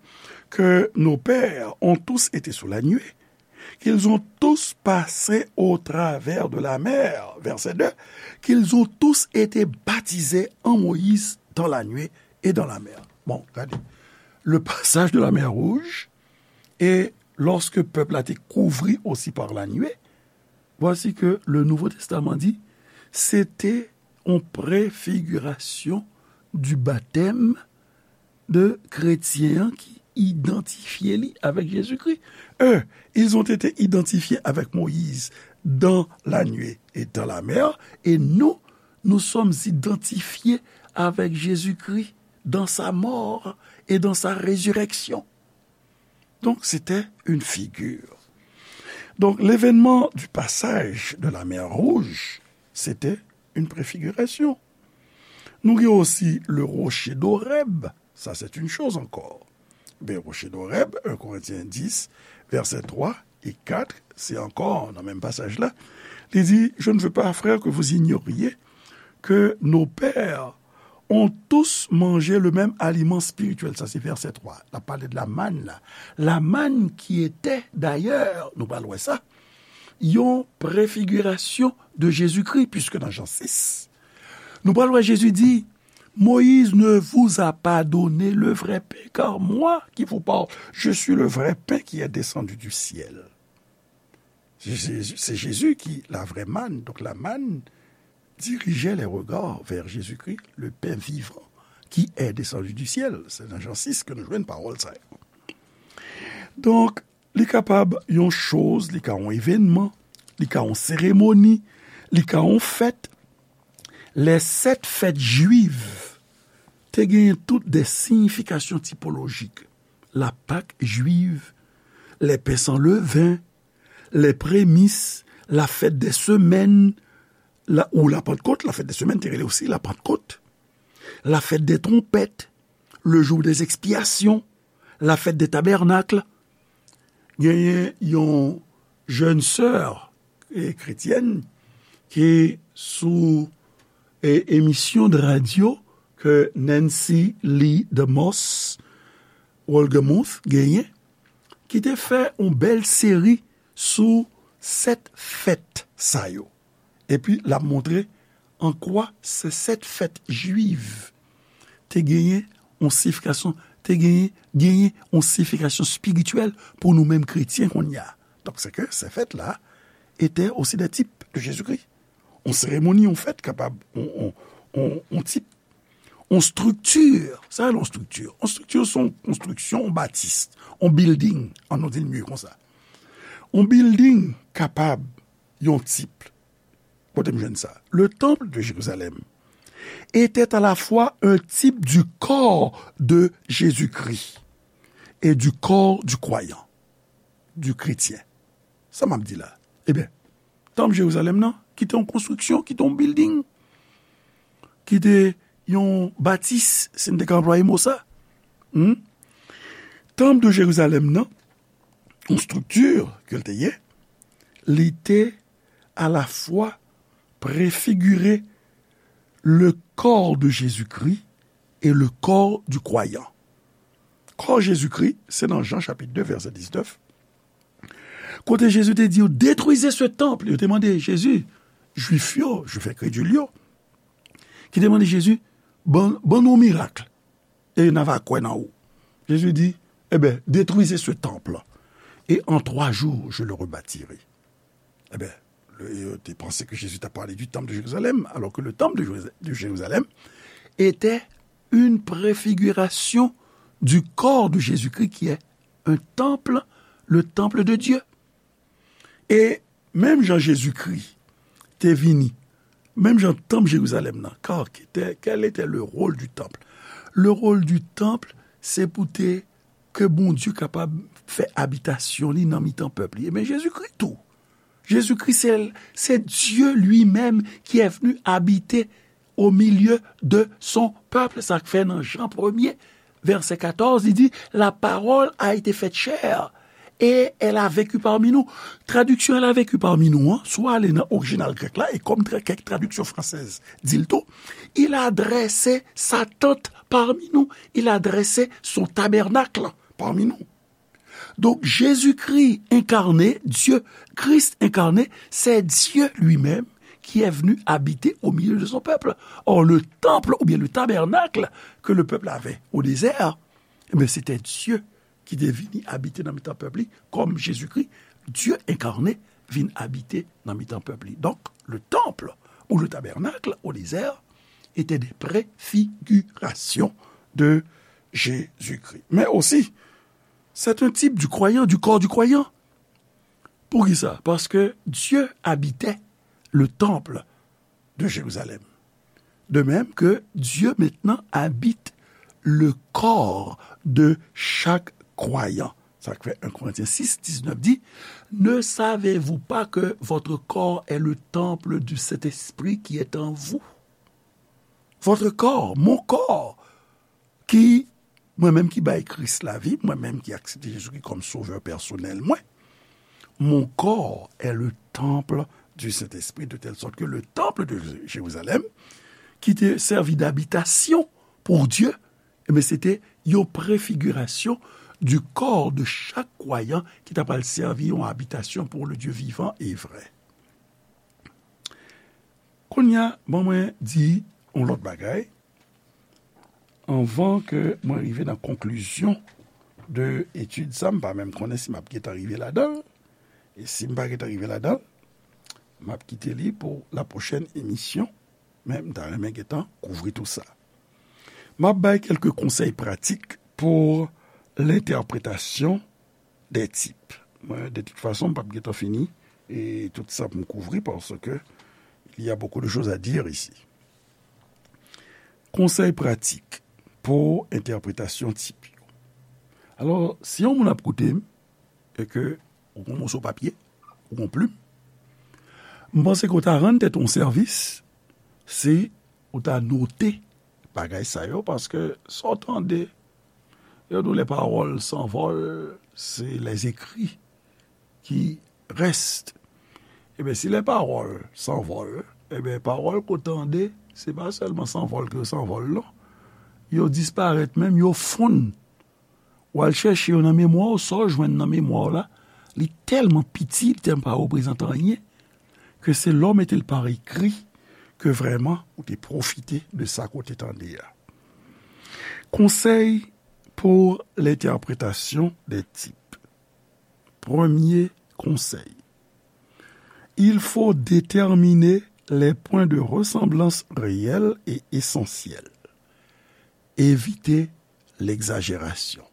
que nos pères ont tous été sous la nuée, qu'ils ont tous passé au travers de la mer, verset deux, qu'ils ont tous été baptisés en Moïse dans la nuée et dans la mer. Bon, gade, le passage de la mer Rouge, et lorsque peuple a été couvri aussi par la nuée, voici que le Nouveau Testament dit, c'était en préfiguration du baptême de kretyen an ki idantifye li avèk Jezikri. Eux, ils ont été identifiés avec Moïse dans la nuée et dans la mer, et nous, nous sommes identifiés avec Jésus-Christ dans sa mort et dans sa résurrection. Donc, c'était une figure. Donc, l'événement du passage de la mer Rouge, c'était une préfiguration. Nou gen osi le rocher d'Horeb, ça c'est une chose encore. Ben, rocher d'Horeb, un Corinthiens dix, verset trois et quatre, c'est encore dans le même passage-là. Il dit, je ne veux pas, frères, que vous ignoriez que nos pères ont tous mangé le même aliment spirituel. Ça, c'est verset trois. L ap pale de la manne, là. La manne qui était, d'ailleurs, nou pral wè sa, yon préfiguration de Jésus-Christ, puisque dans Jean six, nou pral wè Jésus dit, Moïse ne vous a pas donné le vrai pain, car moi qui vous parle, je suis le vrai pain qui est descendu du ciel. C'est Jésus, c'est Jésus qui, la vraie manne. Donc la manne dirigeait les regards vers Jésus-Christ, le pain vivant qui est descendu du ciel. C'est dans Jean six que nous jouons une parole, ça. Donc, li kapab yon choz, li ka yon evènman, li ka yon seremoni, li ka yon fèt. Les sept fêtes juives te genyen tout des significations typologiques. La Pâque juive, les pains sans levain, les prémices, la fête des semaines, la, ou la Pentecôte, la fête des semaines, te rele osi la Pentecôte, la fête des trompettes, le jour des expiations, la fête des tabernacles. Genyen yon jèn sè e kretyèn ki sou e, emisyon de radyo ke Nancy Lee DeMoss Wolgemuth genyen, ki te fè yon bèl seri sou sèt fèt sa yo. Epi l ap montre an kwa se sèt fèt jwiv te genyen yon siyifikasyon, te genyen, genyen yon siyifikasyon espirityèl pou nou menm kretyen kounye a. Donk, se ke se fèt la étaient aussi des types de Jésus-Christ. Yon seremoni, yon fèt kapab yon, yon, yon, yon tip, yon estrikti. Sa, yon estrikti. Yon estrikti, se yon konstriksyon, yon batis, yon building, an nou di l mye konsa. Yon building kapab yon tip. Kote m jwenn sa? Le temple de Jérusalem était à la fois un type du corps de Jésus-Christ et du corps du croyant, du chrétien. Sa m ap di la? Ebyen, tanp Jerizalèm nan, ki te yon konstriksyon, ki te yon building, ki te yon batis, si n te ka anplwaye mo sa. Hmm? Tanp de Jerizalèm nan, yon estrikti ke l te ye, li te alafwa prefigire le corps de Jésus-Christ et le corps du croyant. Kò Jezikri, se nan Jan chapit de, vèsè diznèf, kote Jezi te di yo, détruisez ce temple. Yo te mande Jezi, Jwif yo, Jwif enkredil yo, ki te mande Jezi, ban, ban nou yon mirak, e n a va kwè nan ou. Jezi di, eh ben, détruisez ce temple, et en trois jours, je le rebâtirai. Ebyen, le, yo te panse ke Jezi t ap pale du temple de Jérusalem, alors que le temple de Jérusa-, de Jérusalem était une préfiguration du corps de Jésus-Christ, qui est un temple, le temple de Dieu. E menm jan Jezikri te vini, menm jan tanp Jerizalèm nan, kar ki te, quel était le rôle du temple? Le rôle du temple, se pou te ke Bondye kapab fè abitasyon li nan mitan pèp li. Ebyen, Jezikri tou. Jezikri, se, se Dieu lui-même qui est venu habiter au milieu de son peuple. Sa k fè nan Jan premye, vèsè katòz, li di, la parole a été faite chair et elle a vécu parmi nous. Tradiksyon elle a vécu parmi nous an, si w ale nan orijinal grèk la, e kòm tra-, kèk tradiksyon fransèz di l tou, il a dressé sa tente parmi nous, il a dressé son tabernacle parmi nous. Donc, Jésus-Christ incarné, Dieu, Christ incarné, c'est Dieu lui-même qui est venu habiter au milieu de son peuple. Or, le temple ou bien le tabernacle que le peuple avait au désert, eh bien, c'était Dieu ki te vini abite nan mitan pèp li, kòm Jezikri, Dye enkarne, vin abite nan mitan pèp li. Donk, le temple ou le tabernacle au désert était des préfigurations de Jésus-Christ. Mais aussi, c'est un type du croyant, du corps du croyant. Poukisa? Paske Dye abite le temple de Jérusalem. De même que Dieu maintenant habite le corps de chaque croyant. Sa k fè un Corinthiens six, dix-neuf di, ne savez-vous pas que votre corps est le temple du Saint-Esprit qui est en vous? Votre corps, mon corps, ki, mwen menm ki bay Kris lavi, mwen menm ki aksepte Jezikri kòm sovè pèsonèl mwen, mon corps est le temple du Saint-Esprit, de telle sorte que le temple de Jérusalem, ki te sèvi d'abitasyon pou Dye, ebyen, se te yon prefigirasyon du corps de chaque croyant ki ta pral sèvi yon abitasyon pour le Dieu vivant et vrai. Kounye a, ban mwen di yon lòt bagay. Anvan ke mwen rive nan konklizyon de etid sa, m pa menm konnen si m ap gentan rive ladan l. E si m pa gentan rive ladan l, m ap kite li pou la pwochèn emisyon. Men m ta renmen gentan kouvri tou sa. M ap bay kèlke konsèy pratik pou lentèpretasyon des types. Mwen, de tout fason, m p ap gentan fini e tout sa pou m kouvri, paske il y a beaucoup de choses à dire ici. Konsèy pratik pou entèpretasyon tip yo. Alò, si yon moun ap koute m, e ke ou gon moso papye, ou gon plim, m panse ke w ta rann tèt ou yon sèvis si ou ta note bagay sa yo, paske sa w tande, yo di w les paroles s'envolent, c'est les écrits qui reste. Ebyen, si les paroles s'envolent, ebyen, pawòl ke w tande, se pa sèlman sanvòl ke yo sanvòl, non. Yo disparèt menm, yo fonn. W al chèche yo nan memwa w, sa w jwenn nan memwa w la, li tèlman piti, li tèlman pa reprezante anyen, ke se lè w mete l pa ekri ke vrèman ou te pwofite de sa ke w te tande a. Conseil pour l'interprétation des types. Premye konsèy. Il faut déterminer les points de ressemblance réels et essentiels. Évitez l'exagération.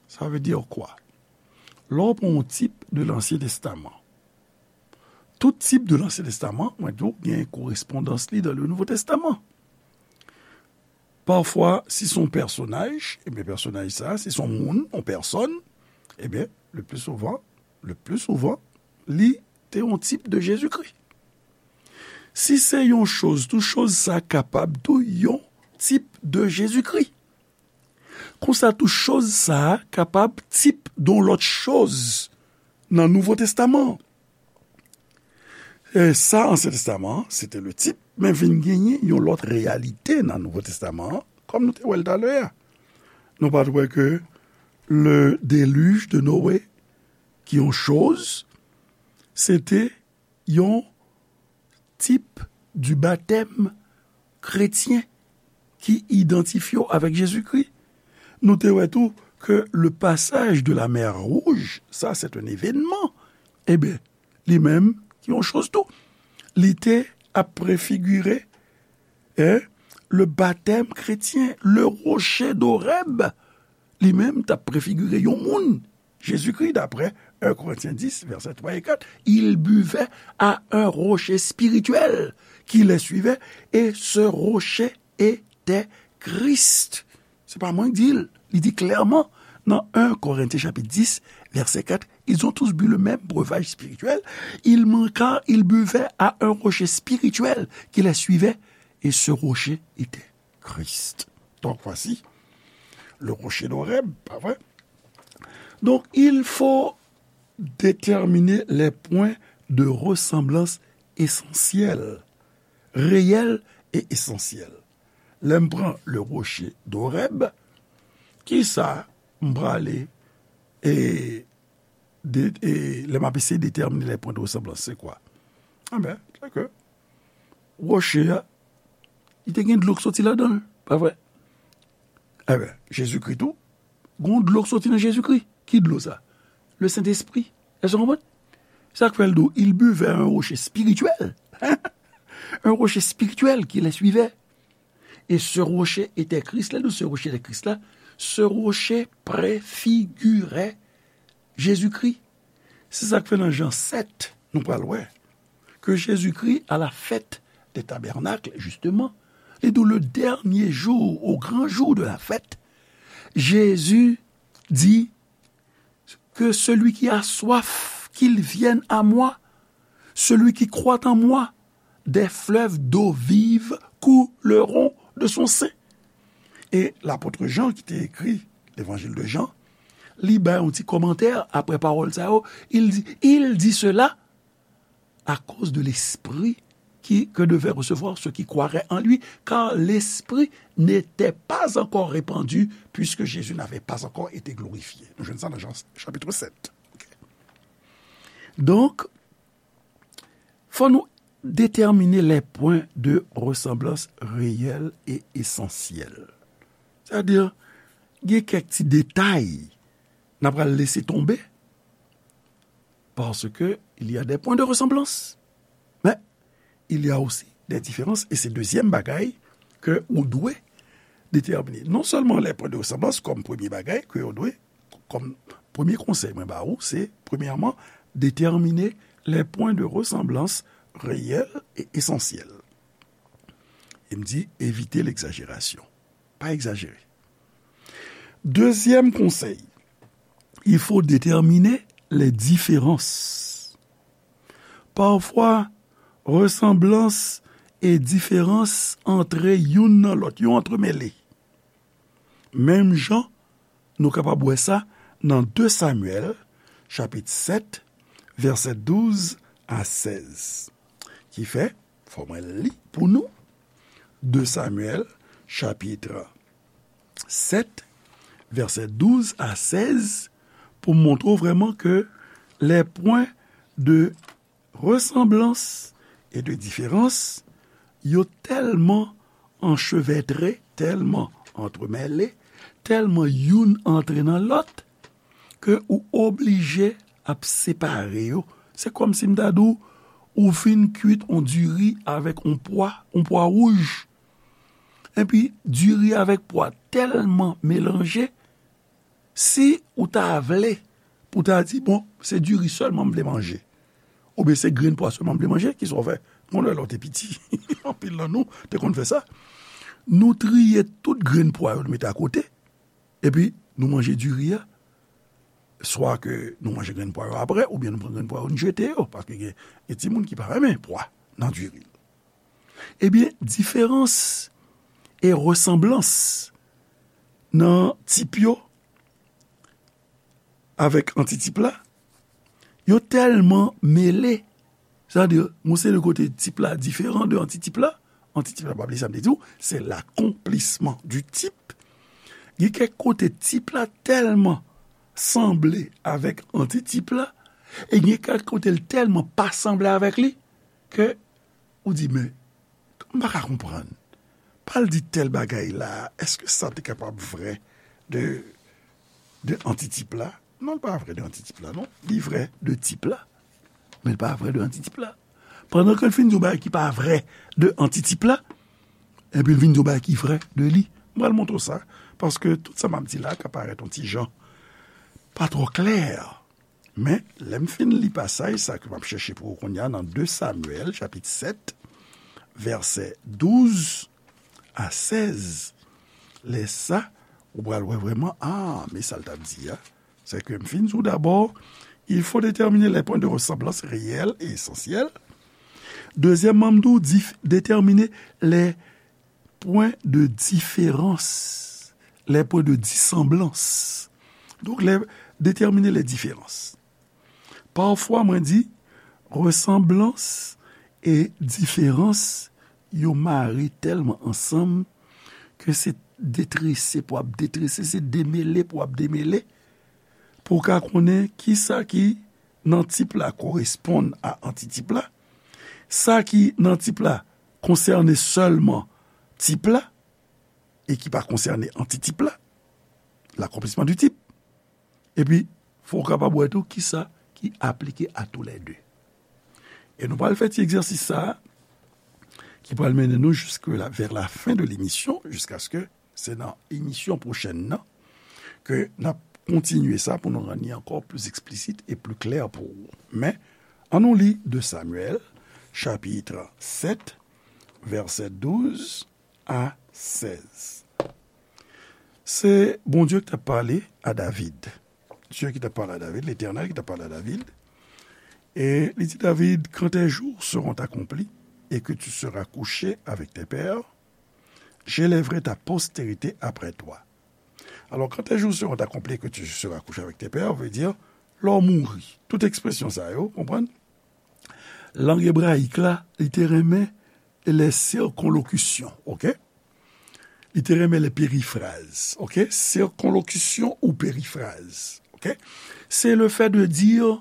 Ça veut dire quoi? Lè w pran yon tip de Lansyen Testaman, tout tip de Lansyen Testaman, mwen di w, gen korespondans li dans le Nouveau Testament. Pafwa, si se yon pèsonaj, ebyen, pèsonaj sa, si se yon moun, yon pèsòn, ebyen, le plus souvent, le plus souvent, li te yon tip de Jezikri. Si se yon choz tou, choz sa kapab tou yon tip de Jezikri. Konsa tou, choz sa kapab tip de yon lòt choz nan Nouvo Testaman. E sa, Ansyen Testaman, se te le tip, men vin genyen yon lòt reyalite nan Nouvo Testaman an, kòm nou te wè l talè a. Nou pa t wè ke le déluge de Noé, ki yon choz, se te yon tip du baptême chrétien ki idantifye w avèk Jezikri. Nou te wè tou ke le passage de la mer Rouge, ça c'est un événement, ebyen, li menm, ki yon choz tou, li te ap prefigire, eh, le baptême chrétien, le rocher d'Horeb, li menm t ap prefigire yon moun, Jezikri, d'après un Corinthiens dix, versets trois et quatre, il buvait à un rocher spirituel qui les suivait, et ce rocher était Christ. Se pa mwen k di l, li di klèman nan un Corinthiens chapitre dix, verset quatre, ils ont tous bu le même breuvage spirituel, ils manquèrent, ils buvaient à un rocher spirituel qui les suivait, et ce rocher était Christ. Donc voici le rocher d'Horeb, pa vre? Donc, il faut déterminer les points de ressemblance essentiels, réels et essentiels. Lè m pran le rocher d'Horeb, kisa m prale e, de, e lè m ap eseye detèmine les points de ressemblance, se kwa? Anben, se ke woche a, li te gen dlo k soti ladan l, pa vre? Anben, Jezikri tou, gon dlo k soti nan Jezikri. Ki dlo sa? Le Sentespri. Èske w konprann? Sa k fè l di w, il buvait un rocher spirituel. Un rocher spirituel qui les suivait. Et ce rocher était Christ. Lè l di w ce rocher était Christ la, ce rocher préfigurait Jezikri. Se sa k fè nan Jan sèt, nou pral wè ke Jezikri, à la fête des tabernacles, justement, li di w, le dernier jour, au grand jour de la fête, Jésus dit que celui qui a soif, qu'il vienne à moi, celui qui croit en moi, des fleuves d'eau vive couleront de son sein. E lapot Jan ki te ekri Levanjil de Jan, li bay yon ti kòmantè apre pawòl sa yo, il dit, il dit cela à cause de l'esprit qui, que devaient recevoir ceux qui croiraient en lui, car l'esprit n'était pas encore répandu, puisque Jésus n'avait pas encore été glorifié. Nou jwenn sa nan Jan chapit sèt. Ok. Donk, fò nou déterminer les points de ressemblance réels et essentiels. Sètadi, gen kèk ti detay n ap pral lese tonbe, parce que il y a des points de ressemblance. Mais il y a aussi des différences, et se dezyèm bagay ke ou dwe detèmine. Non sèlman les points de ressemblance kòm premye bagay ke ou dwe, kòm premye konsèy mwen ba ou, se, premyèman, déterminer les points de ressemblance réels et essentiels. E m di, evite legzajerasion. Pa egzajere. Dezyèm konsèy, il faut déterminer les différences. Pafwa, resanblans e diferans antre youn nan lòt, yo antremele. Menm jan nou kapab wè sa nan de Samyèl, chapit sèt, vèsè douz a sèz. Ki fè, fò mwen li pou nou, de Samyèl, chapit sèt, vèsè douz a sèz, pou montre w vrèman ke les points de ressemblance et de différence, yo tèlman anchevètre, tèlman antremèle, tèlman youn antre nan lòt, ke ou oblije ap separe yo. Se kòmsi m ta di w, ou fin kwit on diri avèk on pwa, on pwa wouj. Epi, diri avèk pwa tèlman melanje, si ou ta vle pou ta di, bon, se diri sèlman m vle manje, oubyen se grenn pwa sèlman m vle manje, kisa w fè? Mwen, lè w te piti, anpil nan nou te konn fè sa. Nou triye tout grenn pwa yo, nou mete akote, epi nou manje diri a. Swa ke nou manje grenn pwa yo apre, oubyen nou pran grenn pwa yo, nou jete yo, paske gen, gen timoun ki pa renmen pwa nan diri. Ebyen, diferans e resanblans nan tip yo avèk antitip la, yo tèlman mele. Sa vle di, yon seri de kote tip la diferan de antitip la. Antitip la, pa bliye sa m te di w, se l'accomplissement du type. Gen kèk kote tip la tèlman sanble avèk antitip la, e gen kèk kote l tèlman pa sanble avèk li, ke ou di, men, m pa ka konprann. Pral di tèl bagay la, èske sa te kapab vrè de, de antitip la? Non, l pa vrè de antitip la, non. Li vrè de tip la, men l pa vrè de antitip la. Pandan ke l fin di yon bagay ki pa vrè de antitip la, epi l vin di yon bagay ki vrè de li. M pral montre w sa, paske tout sa m ap di la ka parèt yon ti jan pa twò klè. Men, lè m fin li pasaj sa ke m ap chèche pou ou kounye a nan de Samyèl, chapit sèt, vèsè douz a sèz, lè sa, ou pral wè vrèman, a, men sa l t ap di a. Se ke m fin di w dabò, il faut déterminer les points de ressemblance réels et essentiels. Dezyèmman, m di w, dif-, déterminer les points de différence, les points de dissemblance. Donk, lè, déterminer les différences. Pafwa, mwen di, resanblans e diferans, yo mare tèlman ansanm ke se detrese pou ap detrese, se demele pou ap demele, pou w ka konnen kisa ki nan tip la koresponn a antitip la, sa ki nan tip la konsène sèlman tip la, e ki pa konsène antitip la, l'accomplissement du type. Epi, fò w kapab wè tou kisa ki aplike à tous les deux. E nou pral fè ti egzèsis sa a, ki pral mennen nou jusque la, vers la fin de l'émission, jusqu'à ce que se nan emisyon pwochèn nan, ke n ap kontinye sa pou nou rann li ankò plis eksplisit e pli klè pou ou. Men, ann nou li de Samyèl, chapit sèt, vèsè douz a sèz. Se Bondye ki t ap pale a David. Dye ki t ap pale a David, Letènèl ki t ap pale a David. E li di David, quand tes jours seront accomplis et que tu seras couché avec tes pères, j'élèverai ta postérité après toi. Alors, quand tes jours seront accomplis et que tu seras couché avec tes pères, vle di, lè w mouri. Tout ekspresyon sa yo, konprann? Lang ebrayik la, li te renmen les circonlocutions, ok? Li te renmen les périphrases, ok? Circonlocution ou périphrase, ok? C'est le fait de dire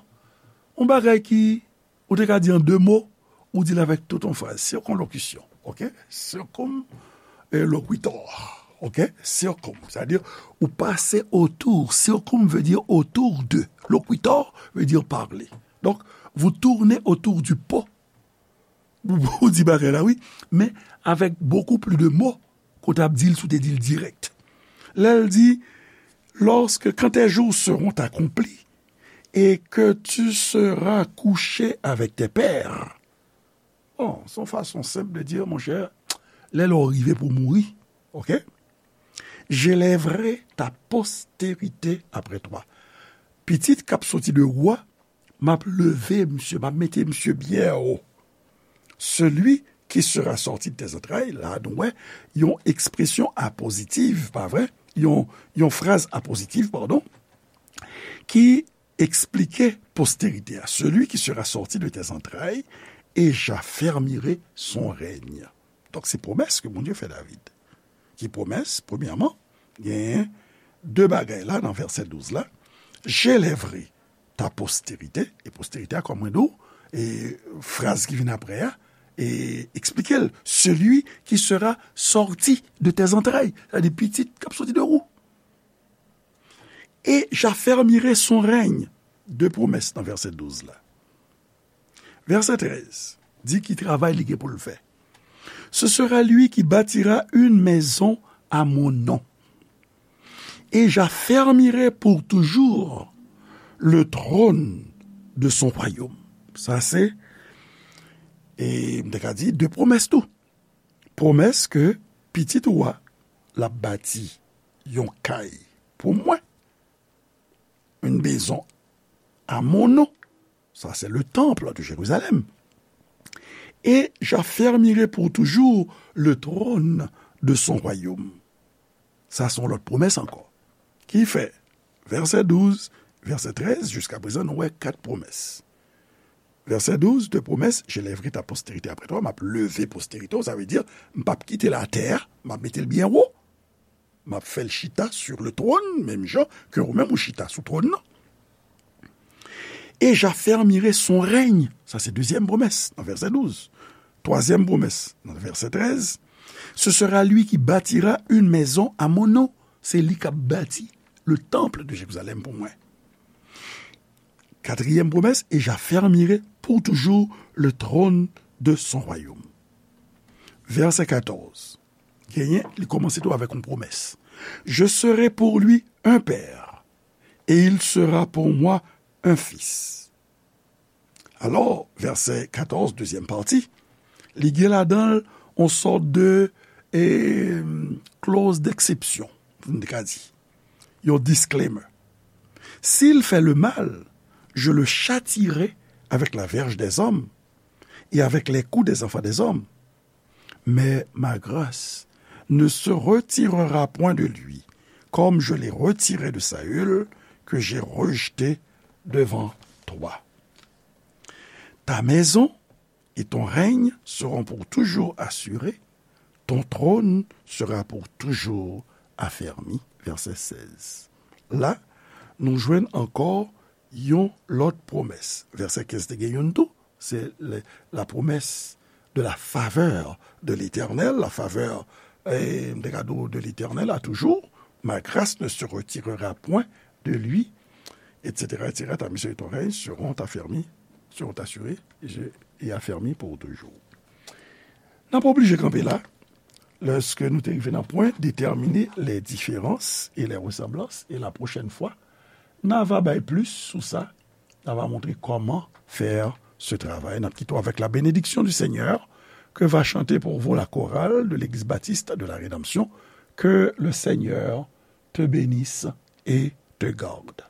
yon bagay ki, ou te ka di an de mo, ou di l avèk tout yon fraz. Circonlocution, ok? Circum, eh, loquitur, ok? Circum, sa vle di ou pase otou. Circum veut dire autour de. Loquitur veut dire parler. Donc, vous tournez autour du pot. Ou, ou di bagay la, wi, men avèk beaucoup plus de mots ke w t ap di l si w te di l dirèk. Lè l di, lorsque, quand tes jours seront accomplis et que tu seras couché avec tes pères. Bon, se yon fason senp de di, monchè, lè lè w rive pou mouri, ok? J'élèverai ta postérité après toi. Pitit k ap soti de ou a, m ap leve misye, m ap mete misye byen wo. Celui qui sera sorti de tes entrailles, la, nou wè, yon ekspresyon apozitiv, pa vre? Yon, yon fraz apozitiv, padon, ki expliquer postérité à celui qui sera sorti de tes entrailles, et j'affermirai son règne. Donk, se pwomès ke Bondye fè David. Ki pwomès? Premyèman, genyen de bagay la nan vèsè douz la. J'élèverai ta postérité, e postérité a, kòm mwen di w, e fraz ki vin apre a, e eksplike l, celui qui sera sorti de tes entrailles, sa di pitit k ap soti de ou. Et j'affermirai son règne. De pwomès nan vèsè douz la. Vèsè trèz di ki travay li gen pou l fè. Ce sera lui qui bâtira une maison à mon nom. Et j'affermirai pour toujours le trône de son royaume. Sa se, e m te ka di, de pwomès tou. Pwomès ke pitit ou a, l ap bati yon kay pou mwen, une maison à mon nom. Ça, c'est le temple de Jérusalem. Et j'affermirai pour toujours le trône de son royaume. Sa se yon lòt pwomès ankò. Ki fè, vèsè douz, vèsè trèz, jiska prezan, nou wè kat pwomès. Vèsè douz, de pwomès, j'élèverai ta postérité après toi, m ap leve posterite w, sa vle di, m p ap kite latè a, m ap mete l byen wo. M ap fè l chita sur le trône, menm jan ke ou menm ou chita sou twòn nan. Et j'affermirai son règne. Sa se dezyèm pwomès nan vèsè douz. Twazyèm pwomès nan vèsè trèz. Ce sera lui qui bâtira une maison à mon nom. Se li k ap bati le temple de Jérusalem pou mwen. Katriyèm pwomès, et j'affermirai pour toujours le trône de son royaume. Vèsè katòz. Genyen, li kòmanse tou avèk yon pwomès. Je serai pour lui un père, et il sera pour moi un fils. Alò, vèsè katòz, dezyèm pati, li gen ladan l yon sòt de, e, clause d'exception, pou n te ka di. Yon disclaimer. S'il fait le mal, je le châtierai avec la verge des hommes et avec les coups des enfants des hommes. Mais ma grâce ne se retirera point de lui, comme je l'ai retiré de Saül, que j'ai rejeté devant toi. Ta maison et ton règne seront pour toujours assurés, ton trône sera pour toujours affermi. Vèsè sèz. La, nou jwenn ankò yon lòt pwomès. Vèsè kenz te gen youn tou, se le, la promesse de la faveur de l'Éternel, la faveur, eh, de l'Éternel à toujours, ma grâce ne se retirera point de lui, et cetera, et cetera. Ta maison et ton règne seront affermis, seront assurés et, je, et affermis pour toujours. N ap oblije kanpe la, lèske nou te rive nan pwen déterminer les différences et les ressemblances, et la prochaine fois, n a va bay plis sou sa, n a va montre comment faire ce travail. N ap kite w avec la bénédiction du Seigneur que va chanter pour vous la chorale de l'Église Baptiste de la Rédemption. Que le Seigneur te bénisse et te garde.